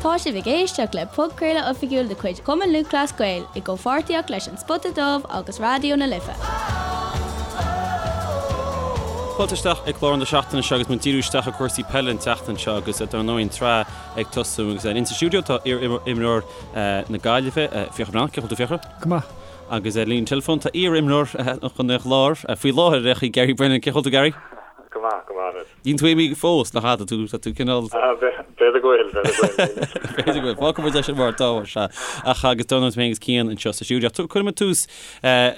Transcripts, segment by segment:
Tá sibh ag éisteacht le podchraoladh oifigiúil de chuid Chumann Lúthchleas Gael i gcomhpháirtíocht leis An Spota Dubh agus Raidió na Life. Fáilte isteach ag clár na seachtaine seo agus muid ag díriú isteach ar cúrsaí peile an tseachtain seo agus dar ndóigh an tsraith ag tosú agus insa stiúideo tá iar-imreoir na Gaillimhe, Fiachra Breathnach, Cén chaoi a bhfuil tú Fiachra? Go maith. Agus ar líne teileafóin tá iar-imreoir Chontae an Chláir faoi láthair ar aon chaoi, Gary Brennan, Cén chaoi a bhfuil tú Gary? Go maith, go maith anois. Níl tú imithe fós, nach ea? Tá tú, tá tú cineál. B'fhéidir go bhfuil, b'fhéidir go bhfuil. B'fhéidir go bhfuil. Fágfaidh muid é sin mar atá, sea. Ach agus dar ndóigh mé agus Cian anseo sa stiúideo. Cuirfidh muid tús,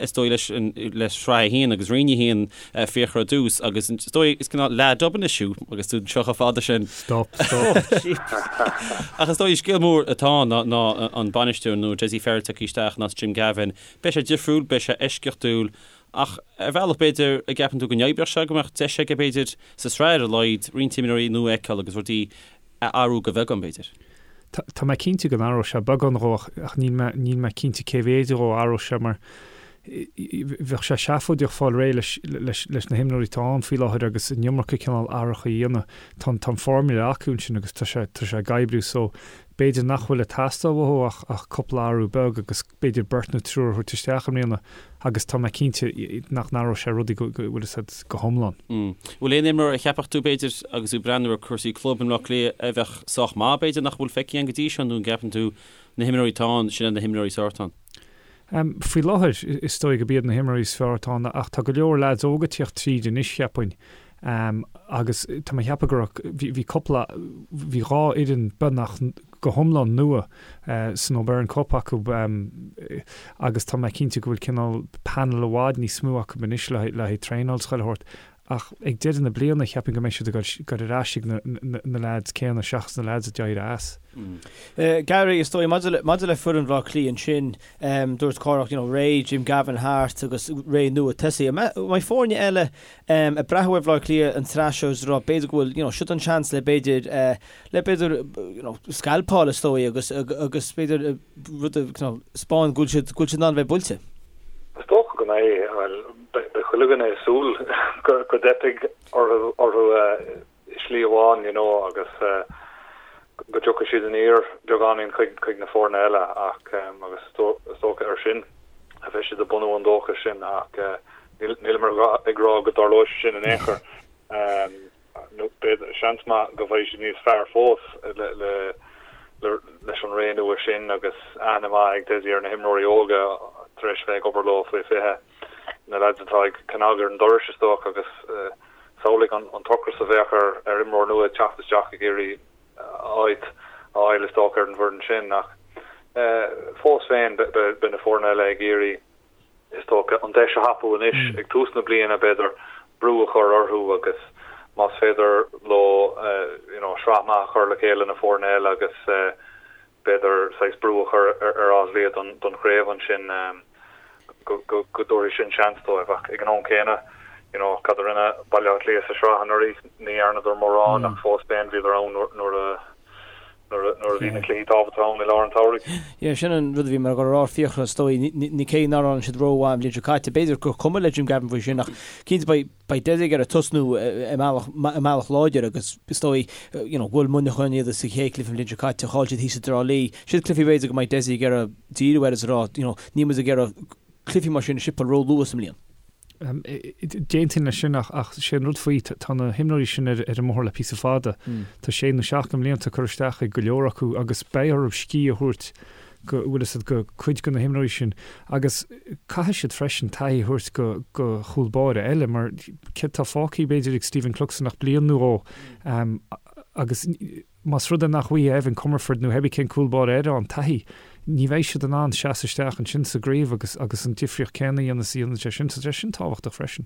is dóigh, leis an, le Sraith 1 agus Roinn 1, Fiachra ar dtús agus is dóigh, is cineál leath dub anois thú agus tú anseo chomh fada sin. Stop, stop. Ach is dóigh, scéal mór atá ann ná, ná an bainisteoir nua, Dessie Farrell tagtha isteach in áit Jim Gavin. Beidh sé difriúil, beidh sé eisceachtúil Ach ar bhealach, b'fhéidir, an gceapann tú go n-oibreodh sé, go mbeadh deis aige, b'fhéidir, sa tsraith ar a laghad, roinnt imreoirí nua a fheiceáil agus rudaí a athrú go bheagán, b'fhéidir. Tá mé cinnte go n-athróidh sé beagán dhó ach níl mé, níl mé cinnte cé mhéid dhó a athróidh sé mar bheadh sé seafóideach fáil réidh leis, leis, leis na himreoirí atá ann faoi láthair agus an iomarca cineál athracha a dhéanamh. Tá an, tá an formula acu ansin agus tá sé, tá sé ag oibriú so b'fhéidir nach bhfuil ag teastáil uathu ach, ach cúpla athrú beag agus b'fhéidir beirt nó triúr a thabhairt isteach i mbliana agus tá mé cinnte nach n-athróidh sé rudaí go, go bhfuil fhios a'd, go hiomlán. Bhfuil aon imreoir a cheapfadh tú, b'fhéidir, agus tú ag breathnú ar cúrsaí club i mBleá Cliath, a bheadh sách maith, b'fhéidir, nach bhfuil feicthe againn go dtí seo nó an gceapann tú na himreoirí atá ann, sin iad na himreoirí is fearr atá ann? Faoi láthair, is dóigh gurb iad na himreoirí is fearr atá ann ach tá go leor leaids óga ag tíocht tríd anois, cheapfainn. Agus tá mé ag ceapadh go raibh, bhí, bhí cúpla, bhí 2 fhoireann beagnach go hiomlán nua san O'Byrne Cup acu agus tá mé cinnte go bhfuil cineál panel i bhfad níos mó acu anois le le haghaidh traenáil is chuile shórt. Ach ag deireadh na bliana cheapfainn go mbeidh siad ag dul ar ais ag na, na, na leaids céanna seachas na leaids a d'éirigh as. Gary, is dóigh, maidir le, maidir le foireann Bhaile Átha Cliath ansin, dúirt Cárthach, you know, ré Jim Gavin thart agus ré nua tosaithe. An mbeidh foirne eile ag breathnú ar Bhaile Átha Cliath an tsraith seo is ag rá b'fhéidir go bhfuil, you know, siod an seans le b'fhéidir, le b'fhéidir, you know, scalpáil is dóigh agus, agus b'fhéidir rud a, you know, 'spáin go bhfuil siad, go bhfuil siad in ann a bheith buailte. Is dócha go mbeidh, bhuel, beidh chuile dhuine ag súil go, go dteipfidh orthu, orthu i slí amháin, you know, agus go dtiocfaidh siad aniar beagáinín chuig, chuig na foirne eile ach, agus is dócha air sin a bheidh siad ag bunú an dóchais sin ach, Nílim ag rá go dtarlóidh sé sin in aon chor. Nó b'fhéidir, seans maith go bhfaighidh siad níos fearr fós leis an ré nua sin agus aithne maith ag Dessie ar na himreoirí óga tar éis bheith ag obair leo faoi 20, na leaids atá ag cnag ar an doras is dócha agus samhlaigh an t-ocras a bheadh ar imreoir nua ag teacht isteach ag iarraidh áit a fháil is dócha ar an bhfoireann sin ach fós féin beidh na foirne eile ag iarraidh is dócha, an deis a thapú anois ag tús na bliana, b'fhéidir, brú a chur orthu agus más féidir leo you know sraith maith a chur le chéile na foirne eile agus b'fhéidir saghas brú a chur ar Áth Cliath don don chraobh ansin go go go dtabharfaidh sin seans dóibh. Ach ag an am céanna, you know, cad a rinne Baile Átha Cliath sa sraith anuraidh? Ní dhearnadar mórán ach fós féin bhíodar ann nuair a nuair a bhí na cluichí tábhachtacha ann i lár an tsamhraidh. Yeah, sin an rud a bhí mé ag dul a rá, Fiachra, is dóigh. Ní cé nár fhan siad rómhaith an bhliain seo caite, b'fhéidir gur cuma le Jim Gavin faoi sin ach cinnte beidh beidh Dessie ag iarraidh tosnú i mbealach i mbealach láidir agus is dóigh you know bhuail Muineachán iad sa chéad chluiche an bhliain seo caite, chaill siad thíos i dTrá Lí. Siad cluichí b'fhéidir go mbeidh Dessie ag iarraidh díriú air is a rá you know níl muid ag iarraidh cluichí mar sin a shipeáil ró-luath sa mbliain. D'aontóinn leis sin ach sé an rud faoi, tá na himreoirí sin ar an mbóthar le píosa fada. Tá sé nó seacht de mblianta curtha isteach ag go leor acu agus beidh orthu scíth a thabhairt go, bhfuil fhios a'd, go cuid de na himreoirí sin. Agus caithfidh siad freisin taithí a thabhairt go go chúl báire eile mar céard atá fágtha b'fhéidir ag Stephen Cluxton ach bliain nó dhó agus Más rud é nach bhfaighidh Evan Comerford nó pébí cén cúl báire eile an taithí, ní bheidh siad in ann seasamh isteach ansin sa gcraobh agus agus an difríocht céanna a dhéanamh is a dhéanann sé sin. So tá sé sin tábhachtach freisin.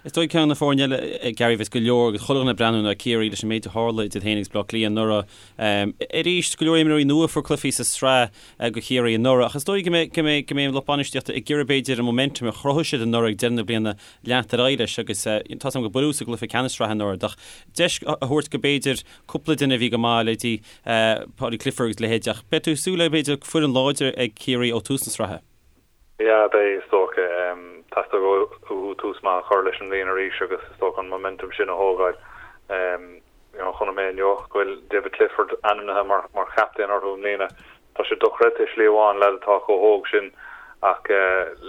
Is dóigh ceann de na foirne eile, Gary, bheas go leor agus chuile dhuine ag breathnú ná Ciarraí leis an méid a tharla idir féin agus Bleá Cliath anuraidh. Arís, go leor imreoirí nua a fuair cluichí sa tsraith do Chiarraí anuraidh ach is dóigh go mbeidh go mbeidh go mbeidh an lucht bainistíochta ag iarraidh b'fhéidir an momentum a chruthaigh siad anuraidh ag deireadh na bliana leanacht ar aghaidh leis agus tá 's agam gur buaileadh sa gcluiche ceannais sraithe anuraidh ach deis a thabhairt go b'fhéidir cúpla duine a bhí go maith, leithéidí Paudie Clifford agus leithéid ach beidh tú ag súil le b'fhéidir foireann láidir ag Ciarraí ó tús na sraithe. Yeah, beidh, is dócha. Teastóidh uathu tús maith a chur leis an mbliain arís agus is dócha an momentum sin a thógáil. You know, chonaic mé inniu go bhfuil David Clifford ainmnithe mar mar chaptaen orthu i mbliana. Tá sé dochreidte i slí amháin, leaid atá chomh hóg sin ach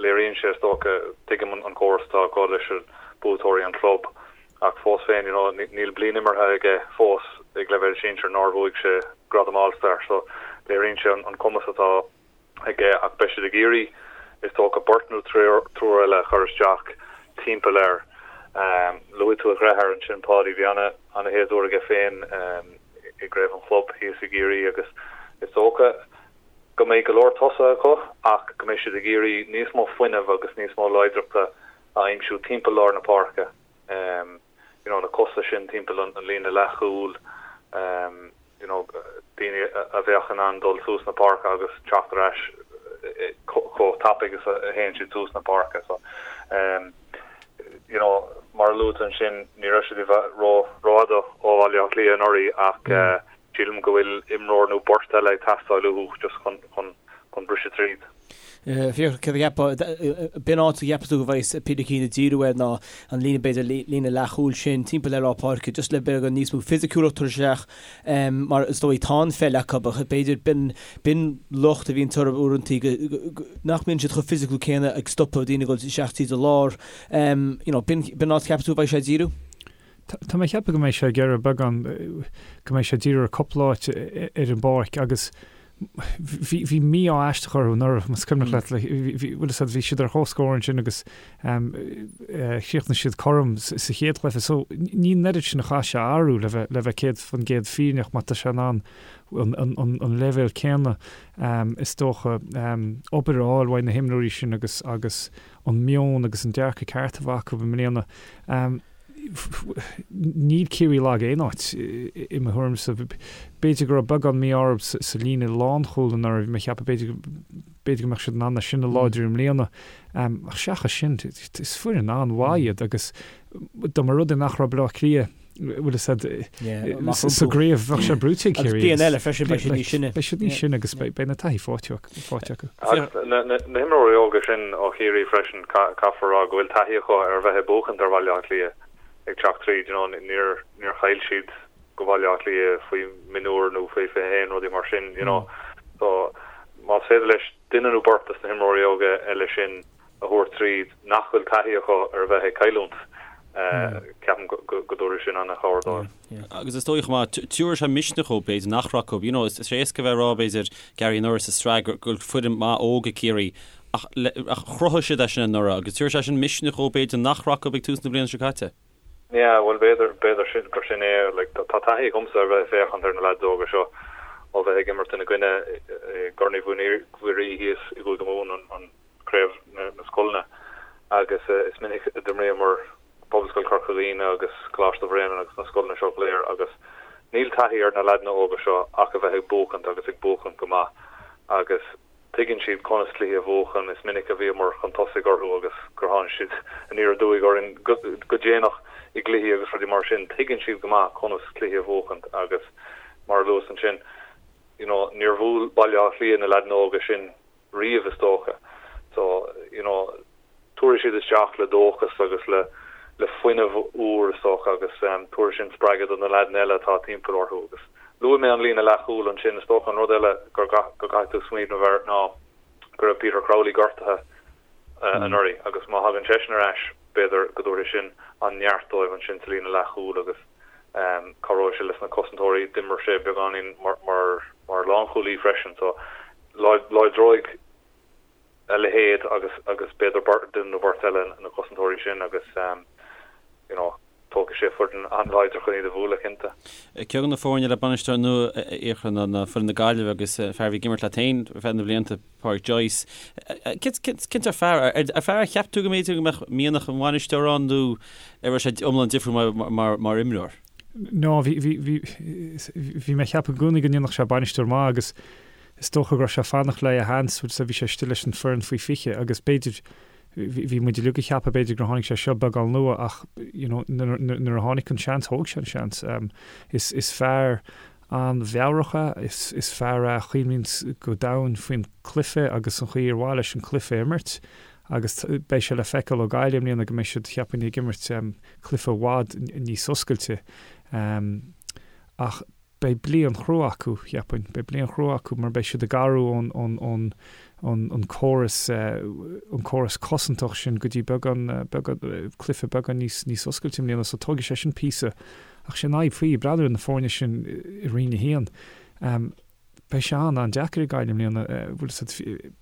léiríonn sé is dócha, tuigim an córas atá acu leis na buaiteoirí an chlub ach fós féin, you know, níl bliain imeartha aige fós ag leibhéal sinsir nár bhuaigh sé gradam All-Star so léiríonn sé an cumas atá aige ach beidh siad ag iarraidh, is dócha, beirt nó triúr eile a chur isteach timpeall air. Luaigh tú a dheartháir ansin, Páidí, bhí ana-shéasúr aige féin i gcraobh an chlub thíos i gCiarraí agus is dócha go mbeidh go leor tosaithe acu ach go mbeidh siad ag iarraidh níos mó fuinnimh agus níos mó láidreachta a aimsiú timpeall lár na páirce. You know, na cosa sin timpeall an líne leathchúil. you know, daoine a bheadh in ann dul suas na páirce agus teacht ar ais chomh tapaidh is a théann siad suas na páirce. So, um, you know, mar a luaigh tú ansin, ní raibh siad i bhfad ró rófhada ó Bhaile Átha Cliath anuraidh ach mm. uh, sílim go bhfuil imreoir nó beirt eile ag teastáil uathu just chun, chun, chun briseadh tríd. Fiachra, céard a cheapfá, b'in áit a gceapann tú go bhféadfadh Peter Keane ag díriú air ná an líne, b'fhéidir, líne leathchúil sin timpeall ar lár páirce, just le beagán níos mó fisiciúlacht a thabhairt isteach mar is dóigh tá an pheil acu ach b'fhéidir b'in, b'in locht a bhíonn orthu uaireantaí go, nach mbíonn siad chomh fisiciúil céanna ag stopadh daoine ag dul isteach tríd an lár. You know, b'in, b'in áit a cheapann tú go bhféadfadh sé díriú? Tá mé ag ceapadh go mbeidh sé ag iarraidh beagán, go mbeidh sé ag díriú ar cúpla áit ar an bpáirc agus bhí bhí mí-ádh aisteach orthu anuraidh, más cuimhneach leat, like, bhí bhí bhfuil a fhios agat, bhí siad ar comhscór ansin agus ehm eh chríochnaigh siad cothrom sa sa chéad chluiche. So ní an oiread sin a chaithfidh sé a athrú le bheith le bheith 100% fírinneach má tá sé in ann an an an an leibhéal céanna ehm is dócha ehm obair a fháil uaidh na himreoirí sin agus agus an meon agus an dearcadh ceart a bheith acu i mbliana. Ehm. Níl Ciarraí lag aon áit, i mo thuairimse. B'fhéidir go raibh beagán mí-ádh orthu sa líne lánchúil anuraidh, bhí mé ag ceapadh b'fhéidir b'fhéidir go mbeadh siad in ann é sin a láidriú i mbliana. Ach seachas sin, is foireann an-mhaith iad agus dá mba rud é nach raibh Baile Átha Cliath, bhfuil a fhios agat, sa gcraobh, bheadh sé brúite ag Ciarraí. Agus bliain eile freisin, beidh siad níos sine. Beidh siad níos sine agus beidh na taithí faighte acu. Agus na himreoirí óga sin ó Chiarraí freisin, caithfear a rá go bhfuil taithí acu ar bheith ag buachaint ar Bhaile Átha Cliath ag teacht tríd, you know, níor níor chaill siad go Baile Átha Cliath faoi mhionúir nó faoi 21, rudaí mar sin, you know. So más féidir leis duine nó beirt des na himreoirí óga eile sin a thabhairt tríd nach bhfuil taithí acu ar a bheith ag cailliúint, ceapaim go dtabharfaidh sin an-chabhair dóibh. Agus is dóigh chomh maith, tabharfaidh sé misneach dóibh, b'fhéidir, nach raibh acu. You know, is éasca a bheith ag rá, b'fhéidir, Gary anuraidh sa sraith go bhfuil foireann maith óg ag Ciarraí, ach ach chruthaigh siad é sin anuraidh agus tabharfaidh sé sin misneach dóibh, b'fhéidir, nach raibh acu ag tús na bliana seo caite. Yeah, bhuel, b'fhéidir, b'fhéidir sin, gur sin é. Like, tá taithí agamsa ar bheith ag féachaint ar na leaids óga seo ó bheith ag imirt ina gcoinne i gCorn Uí Mhuirí thíos i gCúige Mumhan, an, craobh na scoileanna agus is minic a d'imríomar Pobalscoil Chorca Dhuibhne agus Coláiste Bhréanainn agus na scoileanna seo go léir agus níl taithí ar na leaideanna óga seo ach a bheith ag buachaint agus ag buachaint go maith agus tuigeann siad conas cluichí a bhuachan. Is minic a bhíomar chun tosaigh orthu agus gur tháinig siad aniar aduaidh orainn go déanach i gcluichí agus rudaí mar sin. Tuigeann siad go maith conas cluichí a bhuachaint agus mar a luas ansin, you know, níor bhuail Baile Átha Cliath na leaideanna óga sin riamh is dócha. So, you know, tabharfaidh siad isteach le dóchas agus le le fuinneamh úr is dócha agus tabharfaidh sin spreagadh do na leaideanna eile atá timpeall orthu agus luaigh mé an líne leathchúil ansin, is dócha an rud eile gur go gcaithfidh tú smaoineamh air ná go raibh Peter Crowley gortaithe anuraidh agus má thagann seisean ar ais b'fhéidir go dtabharfaidh sin an neart dóibh ansin sa líne leathchúil agus cabhróidh sé leis na cosantóirí. D'imir sé beagáinín mar mar lánchúlaí freisin so láidreoidh a leithéid agus agus b'fhéidir duine nó beirt eile na cosantóirí sin agus you know tógfaidh sé foireann an-láidir chun iad a bhualadh cinnte. Ceann de na foirne le bainisteoir nua a Fhiachra ná foireann na Gaillimhe agus fear a bhí ag imirt leat féin ar feadh na blianta, Pádraic Joyce. Cén sórt fear, ar fear a cheap tú go mb'fhéidir go mbeadh mianach an bhainisteora ann nó an raibh sé iomlán difriúil mar imreoir? No, bhí, bhí, bhí, bhí mé ag ceapadh i gcónaí go ndéanfadh sé bainisteoir maith agus is dócha go raibh sé ag fanacht le a sheans, bhí sé istigh leis an foireann faoi 20 agus b'fhéidir, bhí, bhí muid uilig ag ceapadh b'fhéidir gur tháinig sé seo beagán luath ach you know nuair, nuair a tháinig an seans, thóg sé an seans. Is, is fear an-mheabhrach é, is, is fear é a chuimhníonns go domhain faoin cluiche agus an chaoi ar mhaith leis an cluiche a imirt agus beidh sé le feiceáil ó Gaillimh i mbliana go mbeidh siad, cheapfainn, ag imirt cluiche i bhfad níos oscailte. Ach beidh bliain chrua acu, cheapfainn. Beidh bliain chrua acu mar beidh siad ag athrú ón, ón, ón, ón, ón córas, an córas cosantach sin go dtí beagán, beagán, cluiche beagán níos, níos oscailte i mbliana. So tógfaidh sé sin píosa. Ach sé an fhadhb faoi, breathnú ar na foirne sin i Roinn 1. Beidh sé an-an-deacair ag Gaillimh i mbliana, bhfuil a fhios agat,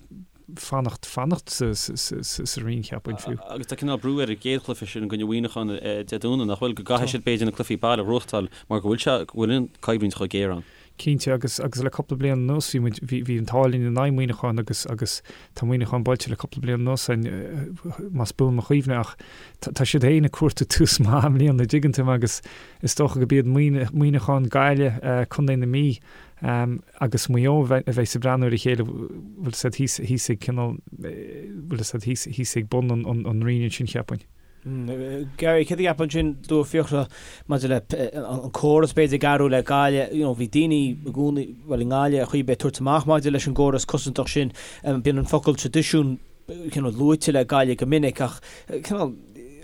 fanacht, fanacht sa, sa, sa, sa roinn, cheapfainn, fiú. Agus tá cineál brú ar an gcéad chluiche sin i gcoinne Mhuineacháin Dé Domhnaigh, nach bhfuil, go gcaithfidh siad b'fhéidir na cluichí baile a ghnóthachtáil mar go bhfuil sé, go bhfuil an choimhlint chomh géar ann. Cinnte, agus, agus le cúpla bliain anuas bhí muid, bhí, bhí an t-ádh linn in aghaidh Mhuineacháin agus, agus tá Muineachán buailte le cúpla bliain anuas againn, más buan mo chuimhne, ach tá, tá siad féin ag cuartú tús maith i mbliana, an dtuigeann tú mé, agus is dócha go b'iad Muineachán, Gaillimh, Contae na Mí agus Maigh Eo a bheas ag breathnú ar a chéile, bhfuil a fhios agat, thíos, thíos ag cineál, bhfuil a fhios agat, thíos, thíos ag bun an, an, an roinn ansin, cheapfainn. Gary, céard a cheapfá ansin, dúirt Fiachra maidir le an córas b'fhéidir ag athrú le Gaillimh, you know, bhí daoine i gcónaí, bhuel i nGaillimh ar chaoi ar bith ag tabhairt amach maidir leis an gcóras cosantach sin, bíonn an focal traidisiún cineál luaite le Gaillimh go minic ach cineál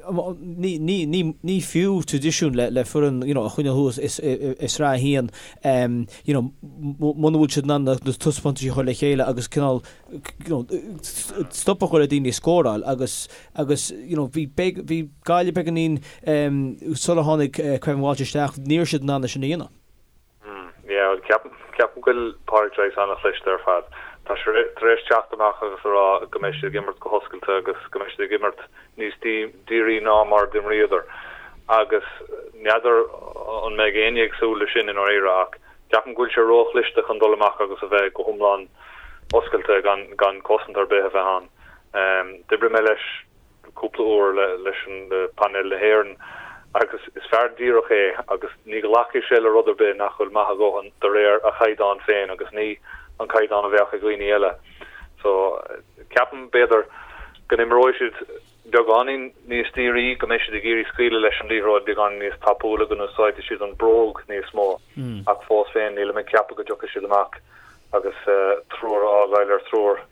ní, ní, ní, ní fiú traidisiún le, le foireann you know, a choinneáil thuas i, i, i Sraith 1 you know, muna bhfuil siad in ann na taispeántais a chur le chéile agus cineál you know, stop a chur le daoine ag scóráil agus, agus you know, bhí, bhí Gaillimh beagáinín sular tháinig Kevin Walsh isteach, ní raibh siad in ann é sin a dhéanamh. Yeah, bhuel, ceapaim, ceapaim go bhfuil Pádraic Joyce an-chliste ar fad. Tá sé tar éis teacht amach agus a rá go mbeidh siad ag imirt go hoscailte agus go mbeidh siad ag imirt níos dírí ná mar d'imríodar. Agus n'fheadar an mbeidh éinne ag súil leis sin i ndáiríre ach ceapaim go bhfuil sé róchliste chun dul amach agus a bheith go hiomlán oscailte gan, gan cosaint ar bith a bheith ann. D'oibrigh mé leis cúpla uair leis an painéal na hÉireann agus is fear díreach é agus ní ghlacfaidh sé le rud ar bith nach bhfuil maith a dhóthain de réir a chaighdeán féin agus ní an caighdeán a bheadh ag dhaoine eile. So ceapaim b'fhéidir go n-imreoidh siad beagáinín níos dírí, go mbeidh siad ag iarraidh scaoileadh leis an liathróid beagáinín níos tapúla, go n-úsáidfidh siad an bróg níos mó ach fós féin nílim ag ceapadh go dtiocfaidh siad amach agus triúr a fhágáil ar thriúr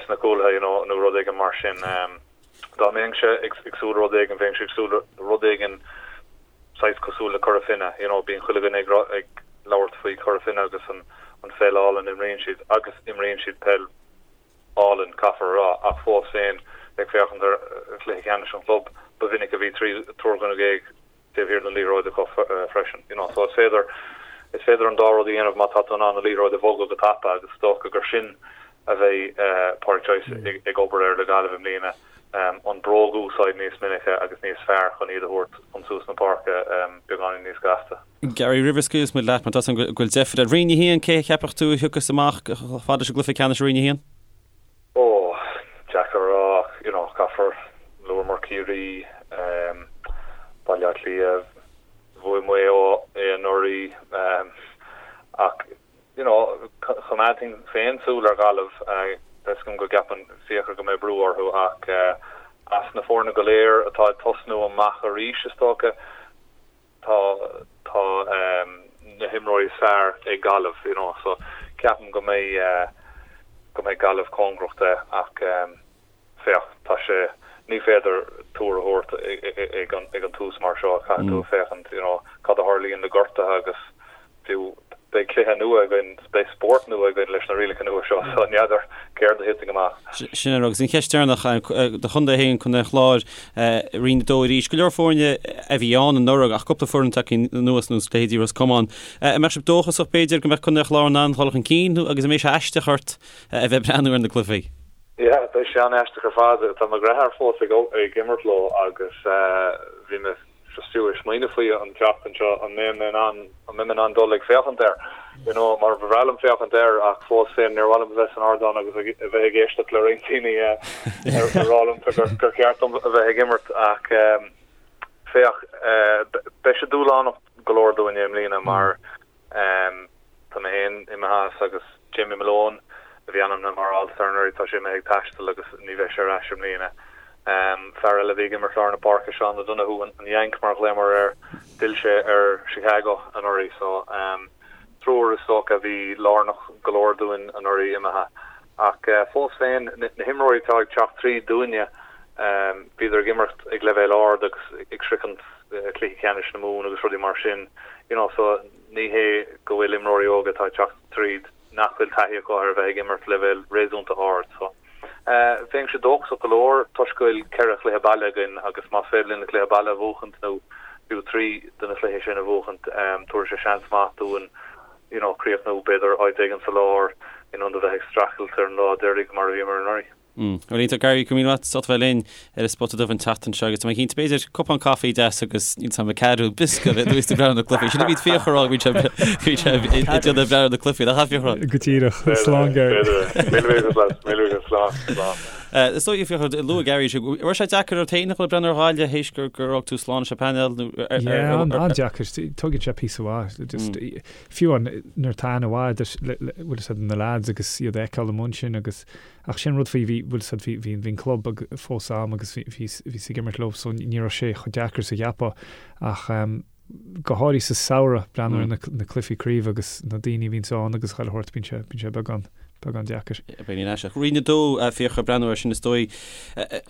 sna cúlaithe you know nó rud éigin mar sin. Dá mbeinnse ag súil le rud éigin, bheinnse ag súil le rud éigin saghas cosúil le Cora Finne, you know bíonn chuile dhuine ag ag labhairt faoi Chora Finne agus an an pheil álainn a imríonn siad agus imríonn siad peil álainn, caithfear a rá, ach fós féin ag féachaint ar chluiche ceannais an chlub, ba mhinic a bhí triúr dhuine taobh thiar den liathróid acu freisin. You know, so is féidir, is féidir an dá rud a dhéanamh má tá tú in ann an liathróid a bhogadh go tapa agus is dócha gur sin a bheidh Pádraic Joyce ag obair air le Gaillimh i mbliana, an bróg a úsáid níos minice agus níos fearr chun iad a thabhairt chun suas na páirce beagáinín níos gasta. Gary, roimh a scaoilfeas muid leat, mar tá a fhios agam go bhfuil deifir ort. Roinn 1, cé a cheapfadh tú a thiocfas amach chomh fada leis an gcluiche ceannais i Roinn 1? Ó, deacair a rá ach, you know, caithfear luamar Ciarraí, Baile Átha Cliath, bhuaigh Maigh Eo é anuraidh, ach, you know, choimeádfainn féin súil ar Ghaillimh, tá fhios agam go gceapann Fiachra go mbeidh brú orthu ach as na foirne go léir atá ag tosnú amach arís, is dócha, tá tá na himreoirí is fearr ag Gaillimh you know so ceapaim go mbeidh go mbeidh Gaillimh cóngarach de ach féach tá sé ní féidir tuar a thabhairt ag an ag an tús mar seo caithfidh tú féachaint you know cad a tharlaíonn le gortuithe agus fiú beidh cluiche nua againn, beidh spórt nua againn leis na rialacha nua seo, so n'fheadar céard a thitfidh amach. Sin é, agus an cheist deireanach, do chontae féin, Contae an Chláir, Roinn 2 arís, go leor foirne a bhí ann anuraidh ach cúpla foireann tagtha anuas ar nós leithéidí Ros Comáin. An mbeadh sibh dóchasach b'fhéidir go mbeadh Contae an Chláir in ann dul chun cinn nó agus an mbeidh sé aisteach ort a bheith ag breathnú ar na cluichí? Yeah, beidh sé an-aisteach ar fad. Tá mo dheartháir fós ag imirt leo agus bhí mé just fiú ag smaoineamh faoi an tseachtain seo, an mbeidh mé in ann, an mbeidh mé in ann dul ag féachaint air, you know, mar ba bhreá liom féachaint air ach fós féin níor mhaith liom a bheith san ardán agus a bheith ag éisteacht le roinnt daoine ag rá liom gur, gur cheart dom a bheith ag imirt ach féach, beidh sé dúshlánach go leor dúinne i mbliana mar Tá mé féin imithe as agus Jamie Malone, a bhí ainmnithe mar All-Star anuraidh, tá sé imithe ag taisteal agus ní bheidh sé ar ais i mbliana. Fear eile a bhí ag imirt lár na páirce, Seán O'Donoghue, an Yank mar a ghlaomar air, d'fhill sé ar Chicago anuraidh so triúr is dócha a bhí lárnach go leor dúinn anuraidh imithe. Ach fós féin, na himreoirí atá ag teacht tríd dúinne, bhíodar ag imirt ag leibhéal ard agus ag sroichint cluichí ceannais na Mumhan agus rudaí mar sin, you know, so. Ní hé go bhfuil imreoirí óga atá ag teacht tríd nach bhfuil taithí acu ar a bheith ag imirt leibhéal réasúnta ard. So, bheinnse dóchasach go leor toisc go bhfuil 4 chluiche baile againn agus más féidir linn na cluiche baile a bhuachaint nó fiú 3 de na cluichí sin a bhuachaint, tabharfaidh sé seans maith dúinn you know, críochnú b'fhéidir áit éigin sa lár in ionad a bheith ag streachailt ar an lá deiridh mar a bhíomar anuraidh. Bhuel iontach Gary, go raibh míle maith agat as ucht a bheith linn ar an Spota Dubh an tseachtain seo agus tá mé cinnte b'fhéidir cupán caife deas agus níl 's a'm ceathrú biosca a bheith ag breathnú ar na cluichí. Sin a bhí Fiachra a rá bhí sé bhí sé ag déanamh breathnú ar na cluichí nach ea Fiachra? Go díreach, slán Gary. Míle buíochas leat, míle buíochas, slán, slán. Is dóigh Fiachra, luaigh Gary sé, raibh sé deacair ort féin a dhul ag breathnú ar Ghaillimh théis gur gur fhág tú slán leis an bpainéal nó ar ar Yeah, an-deacair. Tógann sé píosa mhaith. Just fiú an nuair atá aithne mhaith agat bhfuil 'fhios a'd na lads agus iad a fheiceáil amuigh ansin agus Ach sin rud faoi, bhí, bhfuil 'fhios a'd, bhí, bhí, bhí an club ag, fós a'm agus bhí, bhí, bhíos ag imirt leo so ní raibh sé chomh deacair is a cheapfá. Ach ehm, go háirithe sa samhradh, breathnú ar na, na cluichí craoibhe agus na daoine a bhíonns ann agus chuile shórt, bíonn sé, bíonn sé beagán, beagán deacair. Beidh ní aisteach. Roinn 2, Fiachra, breathnú air sin is dóigh.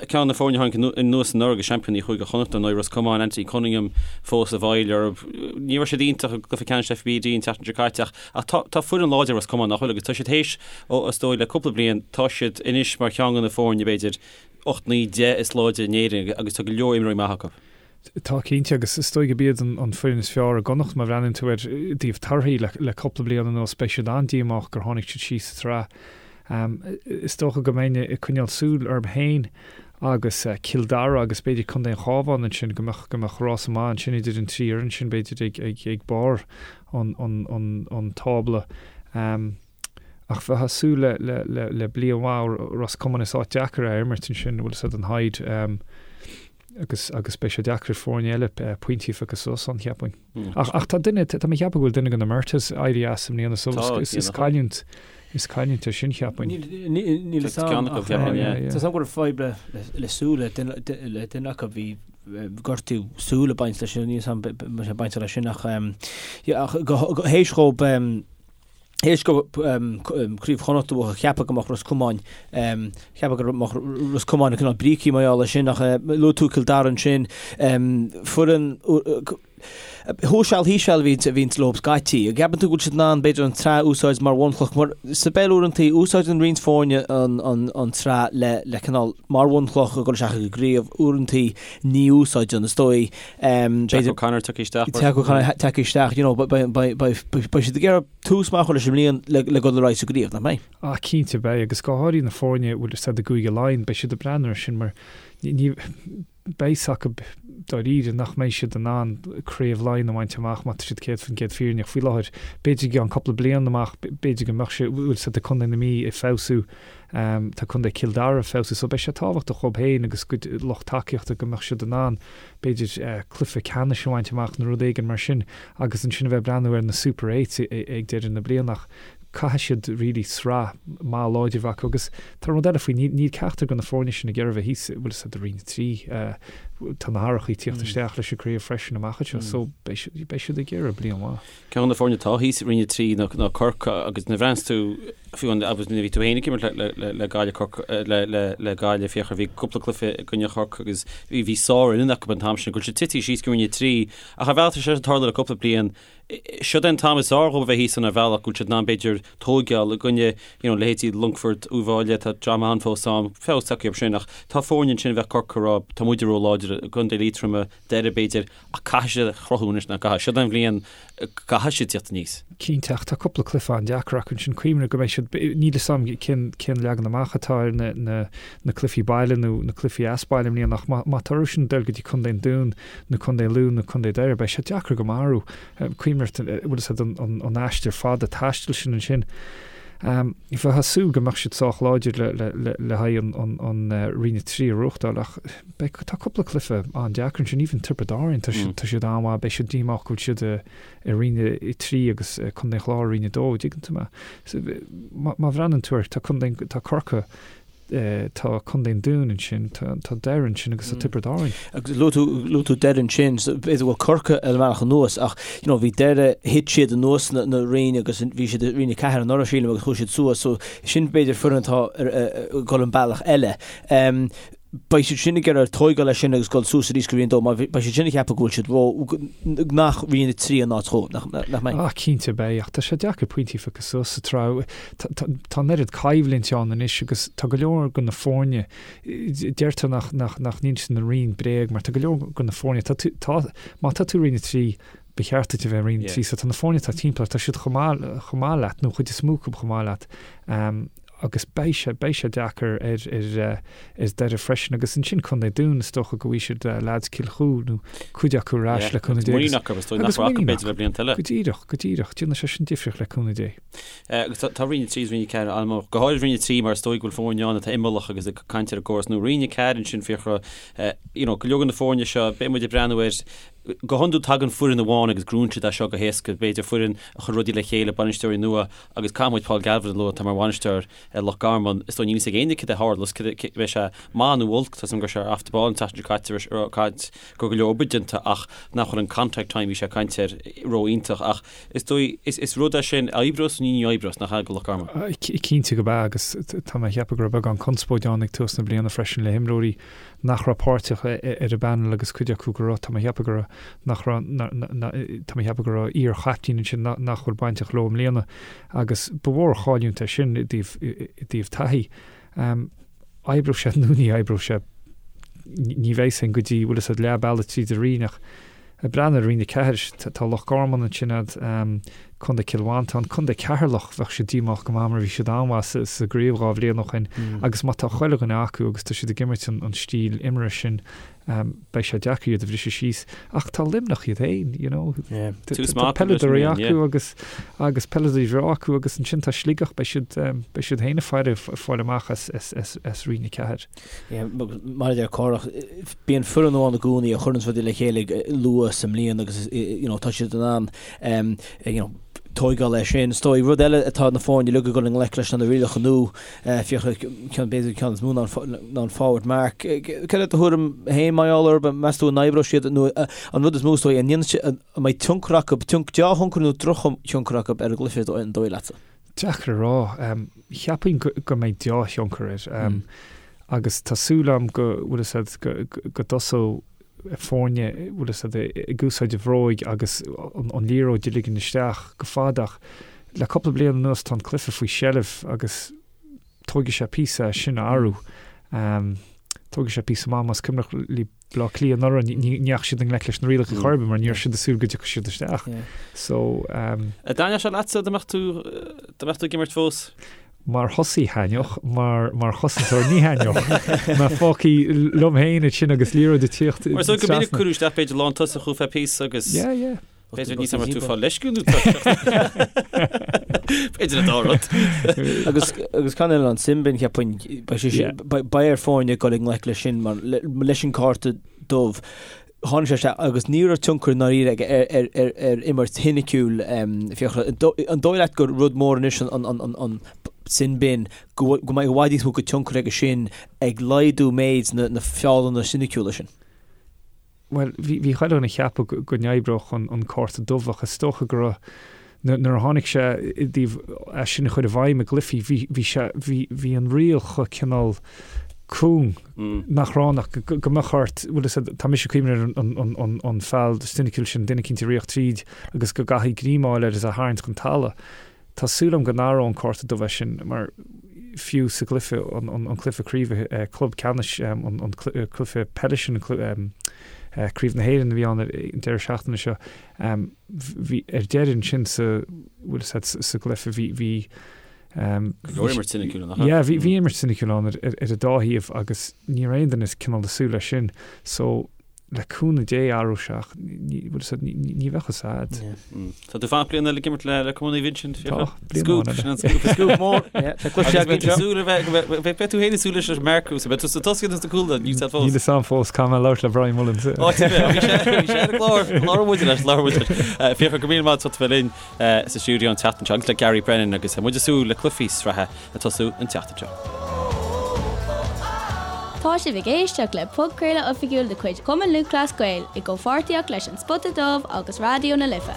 Ceann de na foirne a tháinig anuas anuraidh agus seaimpíní Chúige Chonnacht ar ndóigh, Ros Comáin, Anthony Cunningham fós i bhfeighil orthu. Ní raibh siad iontach i gcluiche ceannais FBD an tseachtain seo caite ach Ach tá, tá foireann láidir Ros Comáin, nach bhfuil, agus tá siad théis, ó, is dóigh, le cúpla bliain, tá siad anois mar cheann de na foirne, b'fhéidir, 8, 9, 10 is láidre in Éirinn agus tá go leor imreoirí maithe acu. Tá, cinnte, agus is dóigh gurb iad an, an foireann is fearr i gConnacht má bhreathnaíonn tú ar i dtaobh torthaí le, le cúpla bliain anuas, beidh siad an-díomách gur tháinig siad síos sa tsraith. Is dócha go mbeinn ag coinneáil súil orthu féin agus Cill Dara agus b'fhéidir Contae an Chabháin ansin, go mbeadh, go mbeadh rása maith ansin idir an trí fhoireann sin, b'fhéidir, ag, ag, ag barr an, an, an, an tábla. Ach bheifeá ag súil le, le, le, le bliain mhaith ó Ros Comáin, is áit deacair é a imirt ansin, bhfuil 'fhios a'd an Hyde. Agus, agus beidh sé deacair ar foirne eile pointí a phiocadh suas ann, cheapfainn. Ach, ach tá duine, tá mé ag ceapadh go bhfuil duine de na Murtaghs éirithe as i mbliana so is, is cailliúint, is cailliúint é sin, cheapfainn. Níl a fhios agam ach tá a fhios agam go raibh fadhb le súil le duine acu, bhí gortú súl ag baint leis sin, níl a fhios agam an bhfuil sé bainteach leis sin ach, yeah, ach théis dhóibh, Théis dóibh Craobh Chonnacht a bhuachan, cheapfá go mbeadh Ros Comáin, cheapfá go mbeadh Ros Comáin cineál brící mar gheall air sin ach luaigh tú Cill Dara ansin, foireann thuas seal thíos seal a bhíonns leo scaití. An gceapann tú go bhfuil siad in ann b'fhéidir an tsraith a úsáid mar bhunchloch mar sa bpeil uaireantaí úsáideann roinnt foirne an tsraith le le cineál mar bhunchloch a dhul isteach ag an gcraobh uaireantaí ní úsáideann is dóigh Jack O'Connor tagtha isteach. Jack O'Connor tagtha isteach, you know, beidh siad ag iarraidh tús maith a chur leis an mbliain le dul ar aghaidh sa gcraobh, nach mbeidh? Ah, cinnte beidh, agus go háirithe na foirne a bhfuil 'fhios a'd i gCúige Laighean, beidh siad ag breathnú air sin mar ní, beidh 'fhios acu dáiríre nach mbeidh siad in ann Craobh Laighean a bhaint amach má tá siad 100% fírinneach faoi láthair. B'fhéidir i gceann cúpla bliain amach, b'fhéidir go mbeadh sé, bhfuil 'fhios a'd tá Contae na Mí ag feabhsú, Tá Contae Chill Dara ag feabhsú so beidh sé tábhachtach dhóibh féin agus a gcuid lucht tacaíochta go mbeadh siad in ann b'fhéidir cluiche ceannais a bhaint amach nó rud éigin mar sin agus ansin a bheith ag breathnú ar na Super Eights ag deireadh na bliana ach caithfidh siad really sraith maith láidir a bheith acu agus tá rud eile faoi níl ceachtar de na foirne sin ag iarraidh a bheith thíos bhfuil 'fhios a'd i Roinn 3 tá na hathrachaí ag tíocht isteach leis an gcraobh freisin amach anseo so beidh siad ag iarraidh bliain mhaith. Ceann de na foirne atá thíos i Roinn 3 ná Corcaigh agus nuair a bhreathnaíos tú, fiú agus nuair a bhí tú féin ag imirt le Gaillimh, Corcaigh, le Gaillimh, Fiachra, bhí cúpla cluiche i gcoinne Chorcaí agus bhí bhí sárfhoireann acu an t-am sin, go bhfuil siad tite síos go Roinn 3 ach ar bhealach tá sé ag tarlú le cúpla bliain. Siod é an t-am is fearr dhóibh a bheith thíos ann ar bhealach go bhfuil siad in ann b'fhéidir tóigeáil i gcoinne you know leithéidí Longfort, Uíbh Fhailí, tá dream ann fós ann, feabhas tagtha orthu sin ach tá foirne ansin a bheadh Corcaigh ag rá tá muide ró-láidir i gContae Liatroma, Doire b'fhéidir. Ach caithfidh siad a chruthú anois, nach gcaithfidh? Siod é an bhliain go gcaithfidh siad tíocht aníos. Cinnte, ach tá cúpla cluiche an-deacair acu ansin. Cuimhnigh go mbeidh siad, níl 'fhios a'm cén, cén leagan amach atá ar na, na, na cluichí baile nó na cluichí as baile i mbliana ach má, má tá orthu sin dul go dtí Contae an Dúin nó Contae Lú nó Contae Doire beidh sé deacair go maith orthu. Cuimhnigh, bhfuil 'fhios a'd, an, an, an aistear fada taistil sin ansin. Bheifeá ag súil go mbeadh siad sách láidir le haghaidh an Roinn 3 a ghnóthachtáil ach beidh, tá cúpla cluiche an-deacair ansin, even Tiobraid Árann, tá siad an-mhaith, beidh siad díomách go bhfuil siad i Roinn 3 agus Contae an Chláir i Roinn 2, dtuigeann tú mé. Má bhreathnaíonn tú air, tá Contae, tá Corcaigh, tá Contae an Dúin ansin, tá Doire ansin agus tá Tiobraid Árann. Agus luaigh tú, luaigh tú Doire ansin, so b'fhéidir go bhfuil Corcaigh ar an mbealach anuas ach you know bhí Doire, thit siad anuas na, na roinn agus bhí siad i Roinn 4 anuraidh sílim agus chuaigh siad suas so sin b'fhéidir foireann atá ar, ag dul an bealach eile. Um. Beidh siad sin ag iarraidh tóigeáil leis sin agus dul suas arís go Roinn 2 mar beidh siad sin ag ceapadh go bhfuil siad ró, nach Roinn 3 an áit dhóibh, nach mbeidh? Ah, cinnte beidh, ach tá sé deacair pointí a phiocadh suas sa tsraith. Tá an oiread coimhlint ann anois agus tá go leor de na foirne, deirtear nach, nach, nach n-inseann an roinn bréag mar tá go leor de na foirne, tá tú, tá, má tá tú i Roinn 3, ba cheart duit a bheith i Roinn 3, so tá na foirne atá timpeall ort, tá siad chomh maith, chomh maith leat, nó an chuid is mó acu chomh maith leat. Agus beidh sé, beidh sé deacair ar, ar, ar Doire freisin. Agus ansin Contae Dún, is dócha go bhfaighidh siad leaids Cill Chua nó cuid acu ar ais le cúnamh Dé. Muinín acu, is dóigh nach raibh acu b'fhéidir le blianta eile. Go díreach, go díreach. Déanfaidh sé sin difríocht le cúnamh Dé. Agus tá Roinn 3 is Roinn 4 an-mhór, go háirid Roinn 3 mar is dóigh go bhfuil foirne ann atá imeallach agus ag caint ar an gcóras nua. Roinn 4 ansin, Fiachra, you know, go leor de na foirne seo, beidh muid ag breathnú ar, go hiondúil tagann foireann amháin agus gnóthaíonn siad é seo go héasca, b'fhéidir foireann a chuir rudaí le chéile, bainisteoirí nua, Agus caithfidh muid Paul Galvin a lua, atá mar bhainisteoir ar Loch Garman. Is dóigh níl a fhios ag éinne cad é a tharlós, cad é, beidh sé maith nó olc, tá a fhios agam go raibh sé ar Off the Ball an tseachtain seo caite, ag caint go raibh go leor obair déanta ach nach bhfuil an contact time bhí sé ag caint air ró-iontach ach is dóigh, is, is rud é sin a oibreos nó ní oibreos, nach ea, do Loch Garman? Cinnte go b'ea agus tá mé ag ceapadh go raibh beagán conspóid ann ag tús na bliana freisin le himreoirí nach raibh páirteach ar an bpanel agus cuid acu go raibh, tá mé ag ceapadh go raibh, nach raibh, tá mé ag ceapadh go raibh iar-chaiptín ansin nach bhfuil bainteach leo i mbliana agus ba mhór an chailliúint é sin i dtaobh, i dtaobh taithí. Oibreoidh sé nó ní oibreoidh sé, ní bheidh a fhios againn go dtí, bhfuil a fhios agat, leath bealaigh tríd an roinn ach ag breathnú ar Roinn 4, tá Loch Garman ansin agat, Contae Chill Mhantáin, Contae Cheatharlach, bheadh siad díomách go maith mar bhí siad an-mhaith sa gcraobh 2 bhliain ó shin agus má tá chuile dhuine acu agus tá siad ag imirt an stíl imeartha sin, beidh sé deacair iad a bhriseadh síos. Ach tá Luimneach iad féin, you know, tá peileadóirí acu agus agus peileadóirí bhreá acu agus ansin tá Sligeach, beidh siad beidh siad féin ag faire fáil amach as as Roinn 4. Mar a deir Cárthach, bíonn foireann amháin i gcónaí a chuireanns rudaí le chéile luath sa mbliain agus you know tá siad in ann you know tóigeáil leis sin. Is dóigh rud eile atá na foirne uilig ag dul i ngleic leis ná na rialacha nua, Fiachra, ceann b'fhéidir ceann is mó ná an forward mark. Cad é do thuairim féin mar gheall orthu? Meas tú an oibreoidh siad nó an rud is mó is dóigh an ndéanfaidh siad an mbeidh tionchar acu, dea-thionchar nó drochthionchar acu ar an gcluiche an dóigh leatsa? Deacair a rá. Cheapfainn go mbeidh deá-thionchar air. Agus tá súil agam go bhfuil fhios agat go dtosóidh foirne bhfuil fhios agat ag úsáid a bhróig agus an liathróid a ligean isteach go fada ach le cúpla bliain anuas tá an cluiche faoi sheilbh agus tógfaidh sé píosa é sin a athrú. Tógfaidh sé píosa maith más cuimhneach libh Bleá Cliath anuraidh, ní dheachaigh siad i ngleic leis na rialacha chor ar bith mar ní raibh siad ag súil go dtiocfadh siad isteach. So. An dtaitneodh sé leatsa dá mbeadh tú, dá mbeadh tú ag imirt fós? Mar thosaí thaitneodh, mar, mar chosantóir ní thaitneodh. Mé fágtha liom féin ansin agus liathróid ag tíocht Mar is dóigh go minic cuireadh isteach b'fhéidir lántosach thú feadh píosa agus. Yeah, yeah. B'fhéidir níos mar tú fáil leisciúil nó B'fhéidir an dá rud. Agus agus ceann eile an sin bin cheapfainn beidh sé sin beidh ar foirne dul i ngleic leis sin mar leis an cárta dubh tháinig sé isteach agus ní raibh tionchar ndáiríre aige ar ar ar ar imirt shoiniciúil Fiachra an dóigh leat gur rud mór anois an an an an sin bin go go mbeidh i bhfad níos mó de tionchar aige sin ag laghdú méid na na feallanna soiniciúla sin. Bhuel, bhí, bhí chuile dhuine ag ceapadh go n-oibreodh an, an cárta dubh ach is dócha go raibh, nuair a tháinig sé i dtaobh é sin a chur i bhfeidhm i gcluichí, bhí, bhí sé, bhí, bhí an riail chomh cineál cúng nach raibh ann ach go, go mbeadh ort, bhfuil fhios agat, tá mise ag cuimhneamh ar an, an, an, an, an feall soiniciúil sin, duine eicínt ag ritheacht tríd agus go gcaithfí greim a fháil air is é a tharraingt chun talaimh. Tá súil agam go n-athróidh an cárta dubh é sin mar fiú sa gcluiche, an cluiche craoibhe, club ceannais, an cluiche peile sin, Craobh na hÉireann a bhí ann an deireadh seachtaine seo, bhí ar deireadh ansin sa, bhfuil fhios agat, sa gcluiche bhí, bhí, Go leor imirt soiniciúil ann, nach ea? Yeah, bhí, bhí imirt soiniciúil ann ar ar an dá thaobh agus ní raibh aon duine cineál ag súil leis sin. So, Le cúnamh Dé athróidh sé ach ní, bhfuil fhios agat, ní bheadh fhios a'd. Tá tú ag fanacht bliain eile ag imirt le le Cumann Naomh Uinseann, Tá, bliain Scoop, amháin eile. sin an scoop. Scoop mór. Yeah, tá cluiche Agus beidh tú againn seo. súil a bheith, go mbeidh, beidh tú féin ag súil leis an marcú, so beidh tú sa tosaí nó sa gcúl, níl fhios a'd fós. Níl fhios a'm fós, caithfidh mé labhairt le Brian Mullins. Ó, bhí sé, bhí sé ar an gclár, labhair muid leis, labhair muid leis. Fiachra, go raibh míle maith agat as ucht a bheith linn sa stiúideo an tseachtain seo agus le Gary Brennan agus muid ag súil le cluichí sraithe ag tosú an tseachtain seo. Tá sibh ag éisteacht le podchraoladh oifigiúil de chuid Chumann Lúthchleas Gael i gcomhpháirtíocht leis An Spota Dubh agus Raidió na Life.